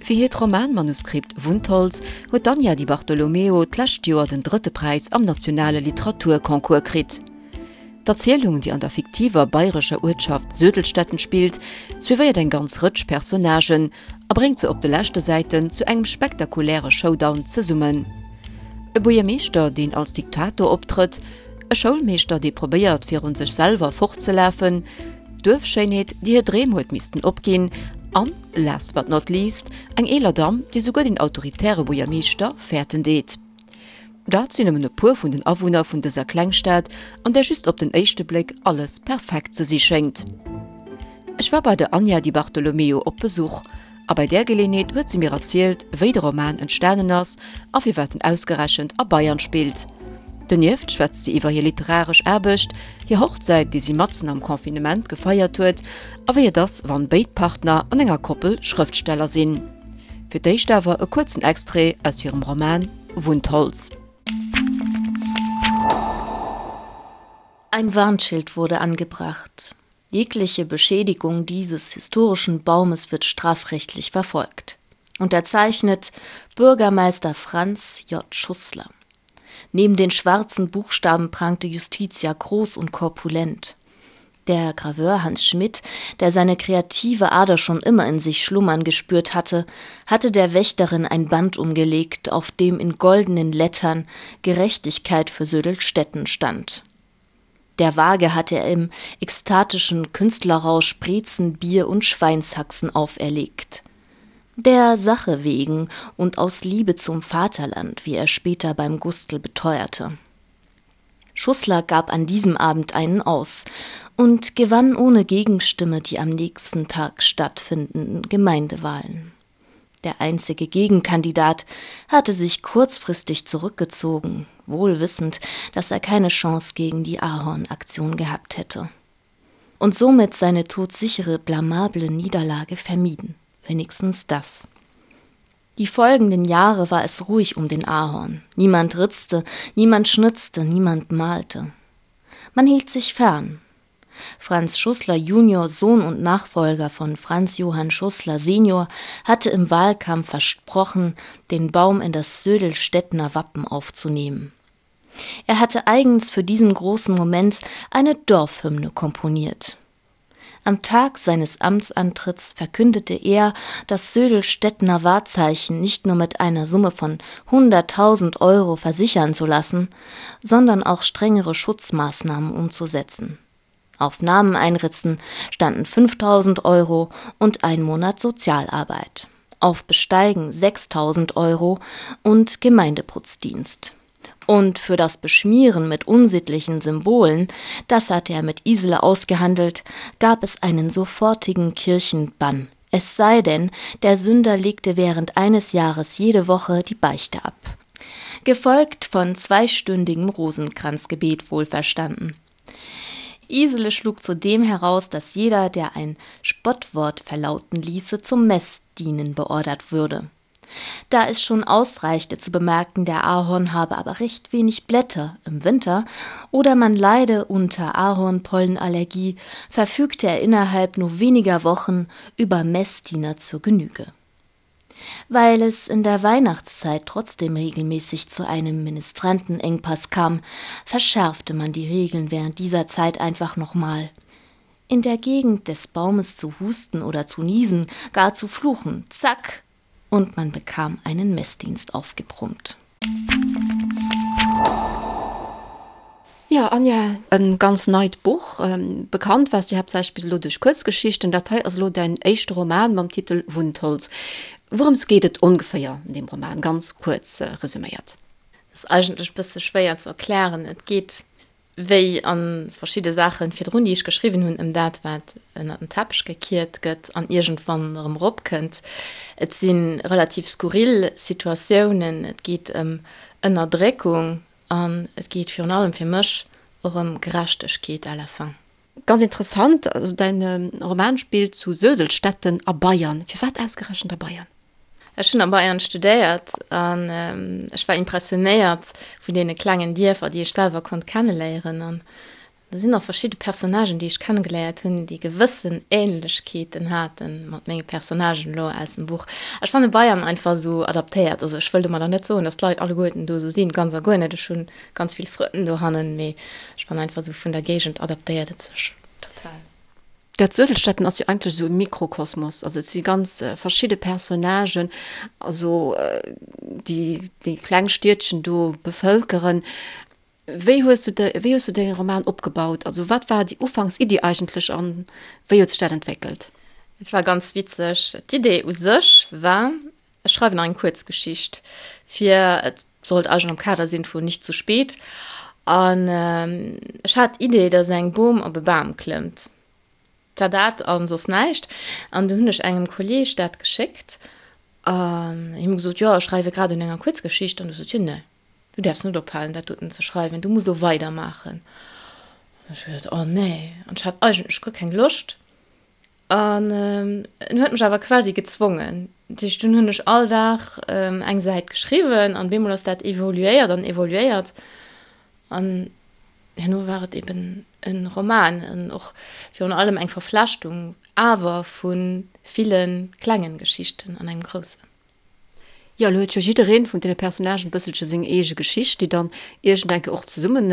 Fir hiert Romanmanuskript Wundholz huet d'Anja Di Bartolomeo d'lescht Joer den drëtte Präis am nationale Literaturconcours kritt. D'Erzielung, déi an der fiktiver bayrescher Uertschaft Södelstetten spillt, suivéiert eng ganz Rëtsch Personnagen a bréngt se op de leschte Säiten zu engem spektakuläre Showdown zesummen. E Buergermeeschter, deen als Diktator optrëtt, e Schoulmeeschter, dee probéiert virun sech selwer fortzelafen, d'Duerfschéinheet, déi hir Dreem huet missten opginn an, last but not least, eng eeler Damm, déi souguer den autoritäre Buergermeeschter fäerten deet. Dat sinn nëmmen e puer vun den Awunner vun dëser Klengstad, an där just op den éischte Bléck alles perfekt ze si schéngt. Ech war bei der Anja Di Bartolomeo op Besuch, a bei där Geleeënheet huet si mir erzielt, wéi de Roman entstanen ass a firwat en ausgerechent a Bayern spillt. Donieft schwätzt si iwwer hir literaresch Aarbecht, hir Hochzäit, déi si matzen am Confinement gefeiert huet, a wéi et ass, wann béid Partner an enger Koppel Schrëftsteller sinn. Fir d'éischt awer e kuerzen Extrait aus hirem Roman Wundholz. Ein Warnschild wurde angebracht. Jegliche Beschädigung dieses historischen Baumes wird strafrechtlich verfolgt. Unterzeichnet Bürgermeister Franz J. Schussler. Neben den schwarzen Buchstaben prangte Justitia groß und korpulent. Der Graveur Hans Schmidt, der seine kreative Ader schon immer in sich schlummern gespürt hatte, hatte der Wächterin ein Band umgelegt, auf dem in goldenen Lettern Gerechtigkeit für Södelstetten stand. Der Waage hatte er im ekstatischen Künstlerrausch Brezen, Bier und Schweinshaxen auferlegt. Der Sache wegen und aus Liebe zum Vaterland, wie er später beim Gustl beteuerte. Schussler gab an diesem Abend einen aus und gewann ohne Gegenstimme die am nächsten Tag stattfindenden Gemeindewahlen. Der einzige Gegenkandidat hatte sich kurzfristig zurückgezogen, wohl wissend, dass er keine Chance gegen die Ahornaktion gehabt hätte. Und somit seine todsichere, blamable Niederlage vermieden. Wenigstens das. Die folgenden Jahre war es ruhig um den Ahorn. Niemand ritzte, niemand schnitzte, niemand malte. Man hielt sich fern. Franz Schussler junior, Sohn und Nachfolger von Franz Johann Schussler senior, hatte im Wahlkampf versprochen, den Baum in das Södelstädtner Wappen aufzunehmen. Er hatte eigens für diesen großen Moment eine Dorfhymne komponiert. Am Tag seines Amtsantritts verkündete er, das Södelstädtner Wahrzeichen nicht nur mit einer Summe von 100.000 Euro versichern zu lassen, sondern auch strengere Schutzmaßnahmen umzusetzen. Auf Namen einritzen standen 5.000 Euro und ein Monat Sozialarbeit, auf Besteigen 6.000 Euro und Gemeindeputzdienst. Und für das Beschmieren mit unsittlichen Symbolen, das hatte er mit Isele ausgehandelt, gab es einen sofortigen Kirchenbann. Es sei denn, der Sünder legte während eines Jahres jede Woche die Beichte ab. Gefolgt von zweistündigem Rosenkranzgebet wohlverstanden. Isele schlug zudem heraus, dass jeder, der ein Spottwort verlauten ließe, zum Messdienen beordert würde. Da es schon ausreichte zu bemerken, der Ahorn habe aber recht wenig Blätter im Winter oder man leide unter Ahornpollenallergie, verfügte er innerhalb nur weniger Wochen über Messdiener zur Genüge. Weil es in der Weihnachtszeit trotzdem regelmäßig zu einem Ministrantenengpass kam, verschärfte man die Regeln während dieser Zeit einfach nochmal. In der Gegend des Baumes zu husten oder zu niesen, gar zu fluchen, zack, und man bekam einen Messdienst aufgebrummt. Jo, Anja, e ganz neit Buch. Bekannt waars du haaptsächlech bis elo duerch Kuerzgeschichten. Dat hei ass elo däin éischte Roman mam Titel Wundholz. Wourëms geet et ongeféier an deem Roman, ganz kuerz resuméiert? Ass eigentlech bësse schwéier ze erklären. Et geet wéi a verschidde Saache virdrun, déi ech geschriwwen hunn, ëm dat, wat ënner den Teppech gekiert gëtt an iergendwann erëm eropkënnt. Et si relativ skurril Situatiounen, et geet ëm Ënnerdréckung an et geet virun allem fir mech och ëm Gerechtegkeet à la fin. Ganz interessant, also däin Roman spillt zu Södelstetten a Bayern. Firwat ausgerechent a Bayern? Ech hunn a Bayern studéiert an ech war impressionéiert vun deene klengen Dierfer, déi ech selwer konnt kenneléieren. Do sinn och verschidde Personnagen, déi ech kennegeléiert hunn, déi gewëssen Ähnlechkeeten hate mat menge Personnagen elo aus dem Buch. Ech fanne Bayern einfach esou adaptéiert. Also ech wëll domadder net soen, datt d'Leit alleguerten do esou sinn, ganz a guer net. Ech hu ganz vill Frënn dohannen, mee ech fannen einfach esou vun der Géigend adaptéiert et sech total. Dat Suedelstetten ass jo eigentlech esou e Mikrokosmos, also et si ganz verschidde Personnagen, also déi déi kleng Stiedchen do bevëlkeren. Wéi hues du de, wéi hues du däi Roman opgebaut? Also wat war déi Ufanksiddi eigentlech an wéi huet sech dat entwéckelt? Et war ganz witzeg. D'Idee u sech war, ech schreiwen eng Kuerzgeschicht fir, et sollt eigentlech am Kader sinn vun Nicht zu spät, an ech hat d'Idee, datt eng Bom op e Bam klëmmt. Et war dat a soss näischt. An du hunn ech engem Kolleeg dat geschéckt an him gesot, jo ech schreiwe grad un enger Kuerzgeschicht. An du sot hien, nee. Du däerfs net ophalen, dat doten ze schreiwen, du muss elo weidermaachen. An ech hu gesot, Oh nee. An ech hat eigentlech guer keng Loscht. An en huet mech awer quasi gezwongen. Dat heescht, dunn hunn ech all Dag eng Säit geschriwwen an bemol ass dat evoluéiert an evoluéiert. An herno war et eben e Roman an och virun allem eng Verflechtung awer vu ville klengen Geschichten an engem groussen. Jo, elo huet jo jiddereen vun deene Personnagen e bësselche seng eege Geschicht, déi dann iergendenke och zesumme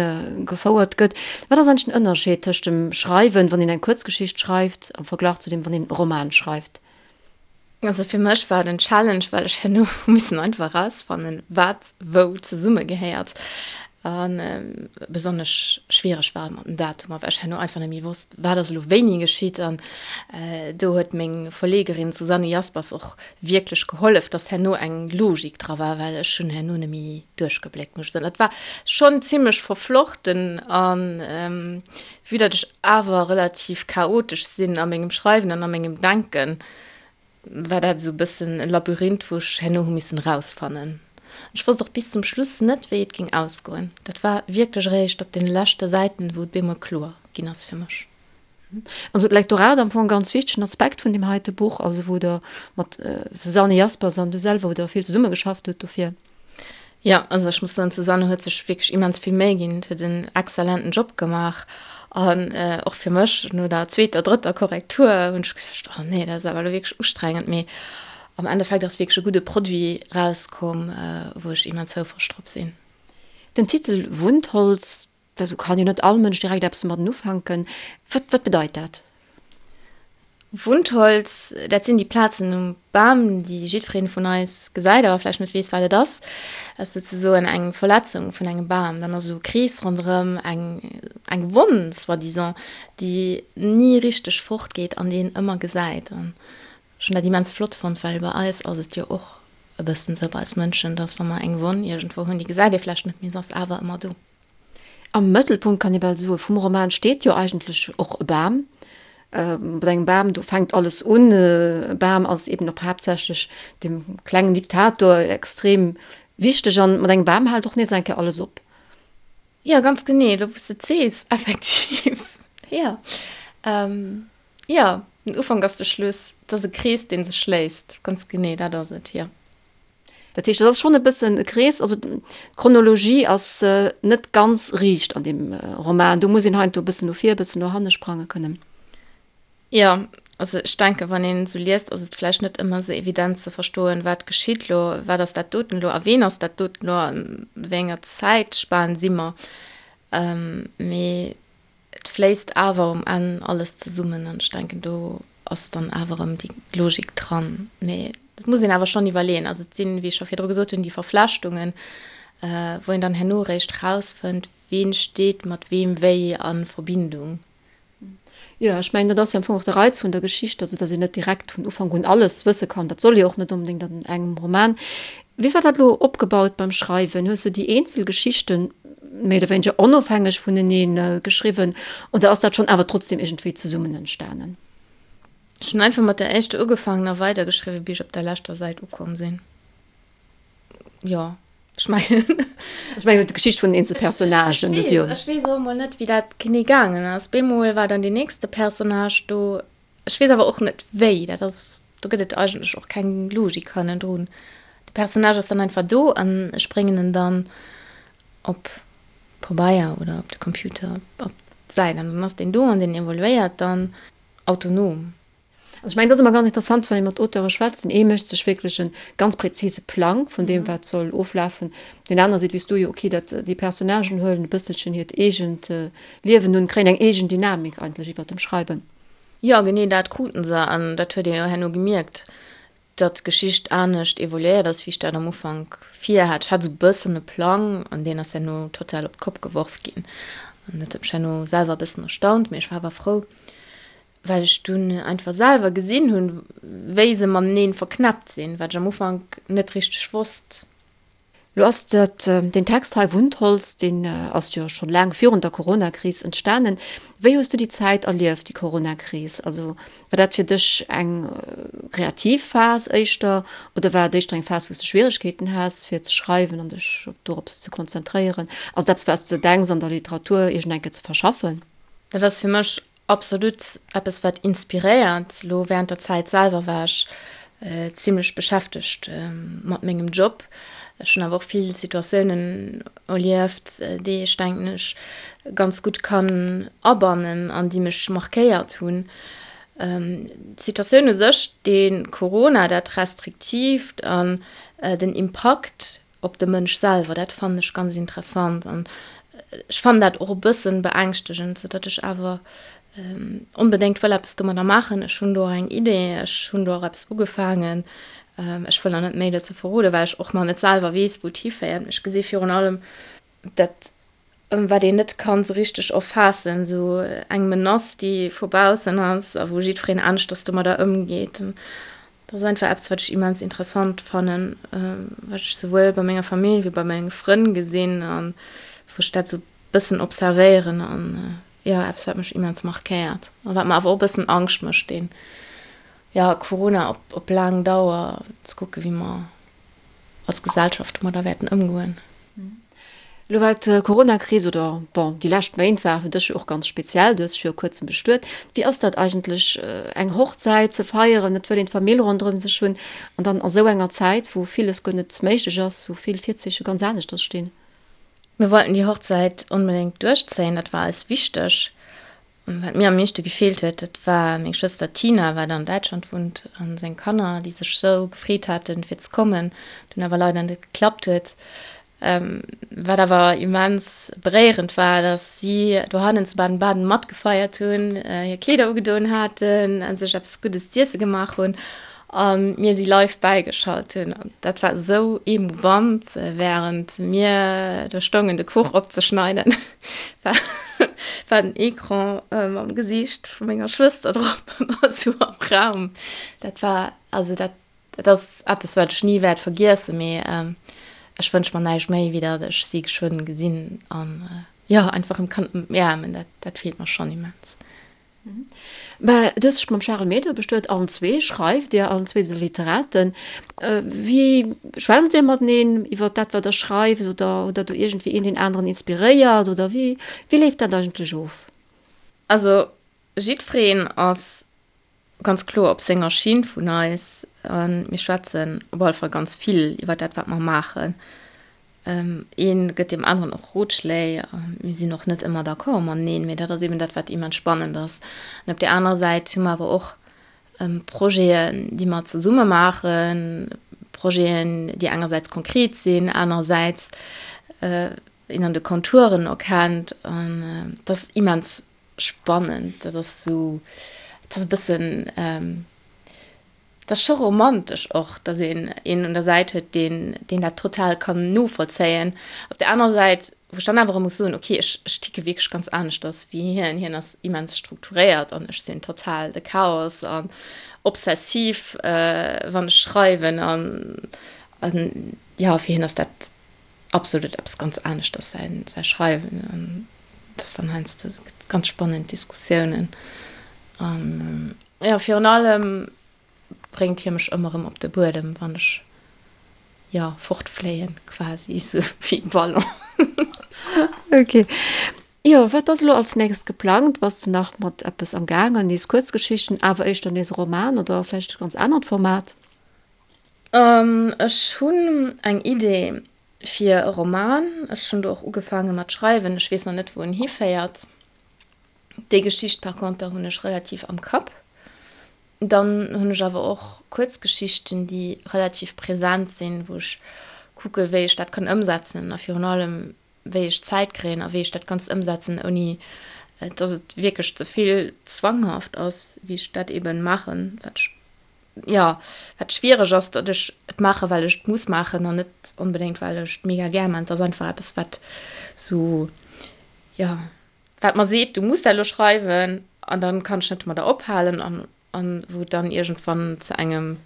gefouert gëtt. Wat ass eigentlech den Ënnerscheed tëscht dem Schreiwen, wann een eng Kuerzgeschicht schreift, am Verglach zu deem, wann een e Roman schreift? Also fir mech war et en Challenge, well ech herno hu missen einfach erausfannen, wat wou zesummegehéiert. A besonnesch schwiereg war et mat den Datumer, well ech herno einfach net méi wosst, wat ass elo wéini geschitt. An do huet meng Verlegerin Susanne Jaspers och wierklech gehollef, dass herno eng Logik dra war, well ech hunn herno net méi duerchgebléckt, muss ech soen. Dat war schonn zimmlech verflochten an vue datt ech awer relativ chaotesch sinn a mengem Schreiwen an a mengem Denken, war dat esou e bëssen e Labyrinth, wou ech herno hu missen erausfannen. Ech wosst och bis zum Schluss net, wéi et géing ausgoen. Dat war wierklech eréischt op den leschte Säiten, wou et bemol kloer ginn ass fir mech. Also d'Lektorat am Fong e ganz wichtegen Aspekt vun deem heite Buch, also wou Der mat Susanne Jaspers an du selwer, wou Der vill zesummegeschafft hutt dofir. Jo, also ech muss soen, d'Susanne huet sech wierklech immens vill Méi ginn, huet en exzellenten Job gemaach an och fir mech no der zweeter, drëtter Korrektur hunn ech geduecht, oh nee, dat ass awer elo wierklech ustrengend, mee am Endeffekt ass wierklech e gudde Produit rauskomm, wou ech immens houfreg drop sinn. Den Titel Wundholz, Do kann jo net all Mënsch direkt eppes domadden ufänken. Wat, wat bedeit dat? Wundholz, dat sinn déi Plazen um Bam, déi jiddweree vun eis gesäit, awer vläicht net weess, wat et ass. Dat ass souzesoen eng Verletzung vun engem Bam. Dann ass esou e Krees ronderëm, eng, eng Wonn soi-disant, déi ni richteg fortgeet an déi een ëmmer gesäit. An ech hunn dat immens flott fonnt, well bei eis ass et jo och e bëssen esou, bei eis Mënschen, dass wa mer eng Wonn iergendwou hunn, déi gesäit ee vläicht net, mee se ass awer ëmmer do. Am Mëttelpunkt, kann ee bal soe, vum Roman steet jo eigentlech och e Bam. Mat engem Bam, do fänkt alles un. E Bam ass eben och haaptsächlech dem klengen Diktator extrem wichteg an mat engem Bam hält och nees eng Kéier alles op. Jo, ganz genee, elo wou s de et sees, effektiv, jo. Jo, den Ufank ass de Schluss, et ass e Krees, dee sech schléisst, ganz genee, dat ass et, jo. Dat heescht, et ass schonn e bëssen e Krees, also d'Chronologie ass net ganz riicht an deem Roman. Do muss een heiansdo e bëssen no vir, e bëssen no hanne sprange kënnen. Jo, also ech denken, wann een esou liest, ass et vläicht net ëmmer esou evident ze verstoen, wat geschitt elo, wat ass dat doten elo a ween ass dat doten elo, an wéi enger Zäitspan si mer. Mee Et fléisst awer um Enn alles zesummen an ech denken, do ass dann awer erëm déi Logik dran. Mee et muss een awer schonn iwwerleeën. Also et sinn, wéi ech scho virdru gesot hunn, déi Verflechtungen, wou een dann herno eréischt rausfënnt, ween steet mat weem wéi a Verbindung. Jo, ech mengen, dat ass jo am Fong och de Reiz vun der Geschicht, also datt een net direkt vun Ufank un alles wësse kann. Dat soll jo och net onbedéngt an engem Roman. Wéi war dat elo opgebaut beim Schreiwen? Hues du déi eenzel Geschichten méi oder wéineger onofhängeg vunenee geschriwwen oder ass dat schonn awer trotzdem iergendwéi zesummen entstanen? Ech hunn einfach mat der éischter ugefaangen a weidergeschriwwen, bis ech op der leschter Säit ukomm sinn. Jo, ech mengen. Ech mengen d'Geschicht vun den eenzel Personnagen. Ech weess, ech weess och emol net, wéi dat genee gaangen ass. Bemol war dann deen nächste Personnage do. Ech weess awer och net wéi, dat ass, do gëtt et eigentlech och keng Logik hannendrun. De Personnage ass dann einfach do an ech bréngen en dann op Pabeier oder op de Computer, op. Säit an dann ass deen do an deen evoluéiert dann autonom. Also ech mengen, dat ass ëmmer ganz interessant, wann ee mat Auteure schwätzt. Den ee mécht sech wierklech e ganz präzise Plang vun deem, wat soll oflafen. Deen aner seet, wéi s du jo, okay, dat, déi Personnagen huelen e bësselchen hiert eegent Liewen un, kréien eng eegen Dynamik eigentlech iwwert dem Schreiwen. Jo, genee dat kruten se an dat huet ee jo herno gemierkt, datt d'Geschicht anescht evoluéiert ass, wéi ech dat am Ufank virhat. Ech hat esou e bëssen e Plang an deen ass herno total op d'Kopp geworf ginn an dat huet mech herno selwer e bëssen erstaunt, mee ech war awer frou, well ech dunn einfach selwer gesinn hunn, wéi se mateneen verknäppt sinn, wat ech am Ufank net richteg wosst. Lo ass dat, deen Text hei, Wundholz, deen ass jo schonn laang virun der Coronakris entstanen. Wéi hues du déi Zäit erlieft, déi Coronakris? Also war dat fir dech eng kreativ Phas éischter oder war et éischter eng Phas, wou s de Schwieregkeeten has fir ze schreiwen an dech dorops ze konzentréieren? Ass et eppes, wat s de denks an der Literatur iergend eng Kéier ze verschaffen? Dat ass fir mech Absolut eppes wat inspiréiert. Lo während der Zäit selwer war ech zimlech beschäftegt mat mengem Job. Ech hunn awer och vill Situatiounen erlieft, déi ech denken ech ganz gutt kann abannen an déi mech markéiert hunn. D'Situatioun u sech, de Corona, dat Restriktiivt an den Impakt op de Mënsch selwer, dat fannen ech ganz interessant an ech fannen dat och e bëssen beängschtegend, sou datt ech awer onbedéngt wëll eppes domadder maachen. Ech hunn do och eng Idee, ech hunn do och eppes ugefaangen. Ech wëll nach net méi dozou verroden, well ech och nach net selwer weess, wou et hiféiert. Mee ech gesi virun allem dat wat een net kann sou richteg erfaassen, sou eng Menace, déi vu baussen ass a wou jiddwereen aneschters domadder ëmgeet. Dat ass einfach eppes, wat ech immens interessant fannen, wat ech souwuel bei menger Famill wéi bei menge Frënn gesinn a wou ech dat sou bëssen observéieren an jo, eppes, wat mech immens markéiert a wat mer awer och e bëssen Angscht mécht, deen, jo, Corona op op laang Dauer, ze kucke wéi mer als Gesellschaft domadder wäerten ëmgoen. Elo war d'Coronakris, oder bon, déi lescht Méint ware fir dech jo och ganz speziell, du hues dech viru kuerzem bestuet. Wéi ass dat eigentlech, eng Hochzäit ze feieren? Et wëll een d'Famill ronderëm sech hunn an dann a sou enger Zäit, wou villes guer net méiglech ass, wou vill Virzeeche ganz aneschters stinn. Mir wollten déi Hochzäit onbedéngt duerchzéien, dat war eis wichteg. Wat mir am meeschte gefeelt huet, dat war meng Schwëster Tina, wat an Däitschland wunnt, a seng Kanner, déi sech sou gefreet haten, fir ze kommen, dunn awer leider net geklappt huet. Wat awer immens beréierend war, dass si dohannen zu Baden-Baden matgefeiert hunn, hir Kleeder ugedoen haten a sech eppes Guddes z'iesse gemaach hunn a mir si live bäigeschalt hunn. An dat war esou emouvant, wärend mir do stoungen, de Kuch opzeschneiden. War, war den Ecran mam Gesiicht vu menger Schwëster drop ëmmer sou am Raum. Dat war, also dat, dat ass eppes, wat ech ni wäert vergiessen, mee ech wënsch mer näischt méi, wéi datt ech si geschwënn gesinn an jo, einfach erëm kann ëmaarmen. Dat, dat feelt mer schonn immens. Mä du hues dech mam Charel Meder bestuet, allen zwee schreift Dir, allen zwee sidd Der Literaten. Wéi schwätzt Dir mateneen iwwer dat, wat Der schreift oder hutt Der do iergendwéi een deen aneren inspiréiert oder wéi, wéi leeft dat eigentlech of? Also jiddwereen ass ganz kloer op senger Schinn vun eis a mir schwätzen op alle Fall ganz vill iwwer dat, wat mer maachen. Ee gëtt deem aneren och Rotschléi. Mir sinn och net ëmmer d'accord mateneen, mee dat ass eben dat, wat immens spannend ass. An op där anerer Säit hu mer awer och Projeten, déi mer zesumme maachen, Projeten, déi engersäits konkret sinn, anerersäits een an de Konturen erkennt. An dat ass immens spannend. Dat ass esou, dat ass e bëssen, Et ass scho romantesch och, datt een een un der Säit huet, deen, deen dat total kann novollzéien. Op der anerer Säit, wou ech dann awer erëm muss soen, okay, ech, ech ticke wierklech ganz aneschters wéi hien. Hien ass immens strukturéiert an ech sinn total de Chaos an obsessiv, wann ech schreiwen an, an jo, fir hien ass dat absolut eppes ganz aneschters, säin, säi Schreiwen. An dat ass dann heiansdo ganz spannend Diskussiounen an. Jo, virun allem bréngt hie mech ëmmer erëm op de Buedem, wann ech, jo, fortfléien quasi, esou wéi e Ballon. Ok. Jo, wat ass elo als nächst geplangt? Bass de nach mat eppes am gaangen? Nees Kuerzgeschichten, awer éischter nees e Roman oder vläicht e ganz anert Format? Ech hunn eng Idee fir e Roman. Ech hunn do och ugefaange mat schreiwen. Ech weess nach net, wou en hiféiert. Déi Geschicht par conter hunn ech relativ am Kapp. Dann hunn ech awer och Kuerzgeschichten, déi relativ present sinn, wou ech kucke wéi ech dat kann ëmsetzen a virun allem wéi ech Zäit kréien a wéi ech dat Ganzt ëmsetzen, ouni dass et wierklech ze vill zwanghaft ass, wéi ech dat eben maachen, wat ech, jo, wat schwiereg ass, datt ech et maache well ech et muss maachen an net onbedéngt well ech et mega gär maachen. Et ass einfach eppes wat sou, jo. Wat mer seet, du muss dat elo schreiwen an dann kann ech net domadder ophalen an an wou et dann iergendwann zu engem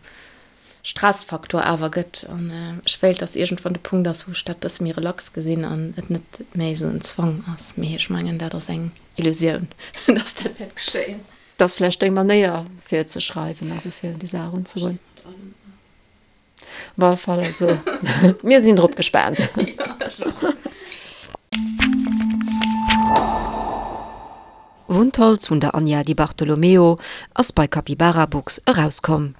Stressfaktor awer gëtt. An ech wéilt, dass iergendwann de Punkt ass, wou ech dat bësse méi relax gesinn an et net méi esou en Zwang ass. Mee ech mengen, dat ass eng Illusioun, dass dat wäert geschéien. Dat ass vläicht deng Manéier fir ze schreiwen, also fir un déi Saach erunzegoen. Op alle Fall, also mir sinn drop gespaant. Wundholz vun der Anja Di Bartolomeo ass bei Capybara Books erauskomm.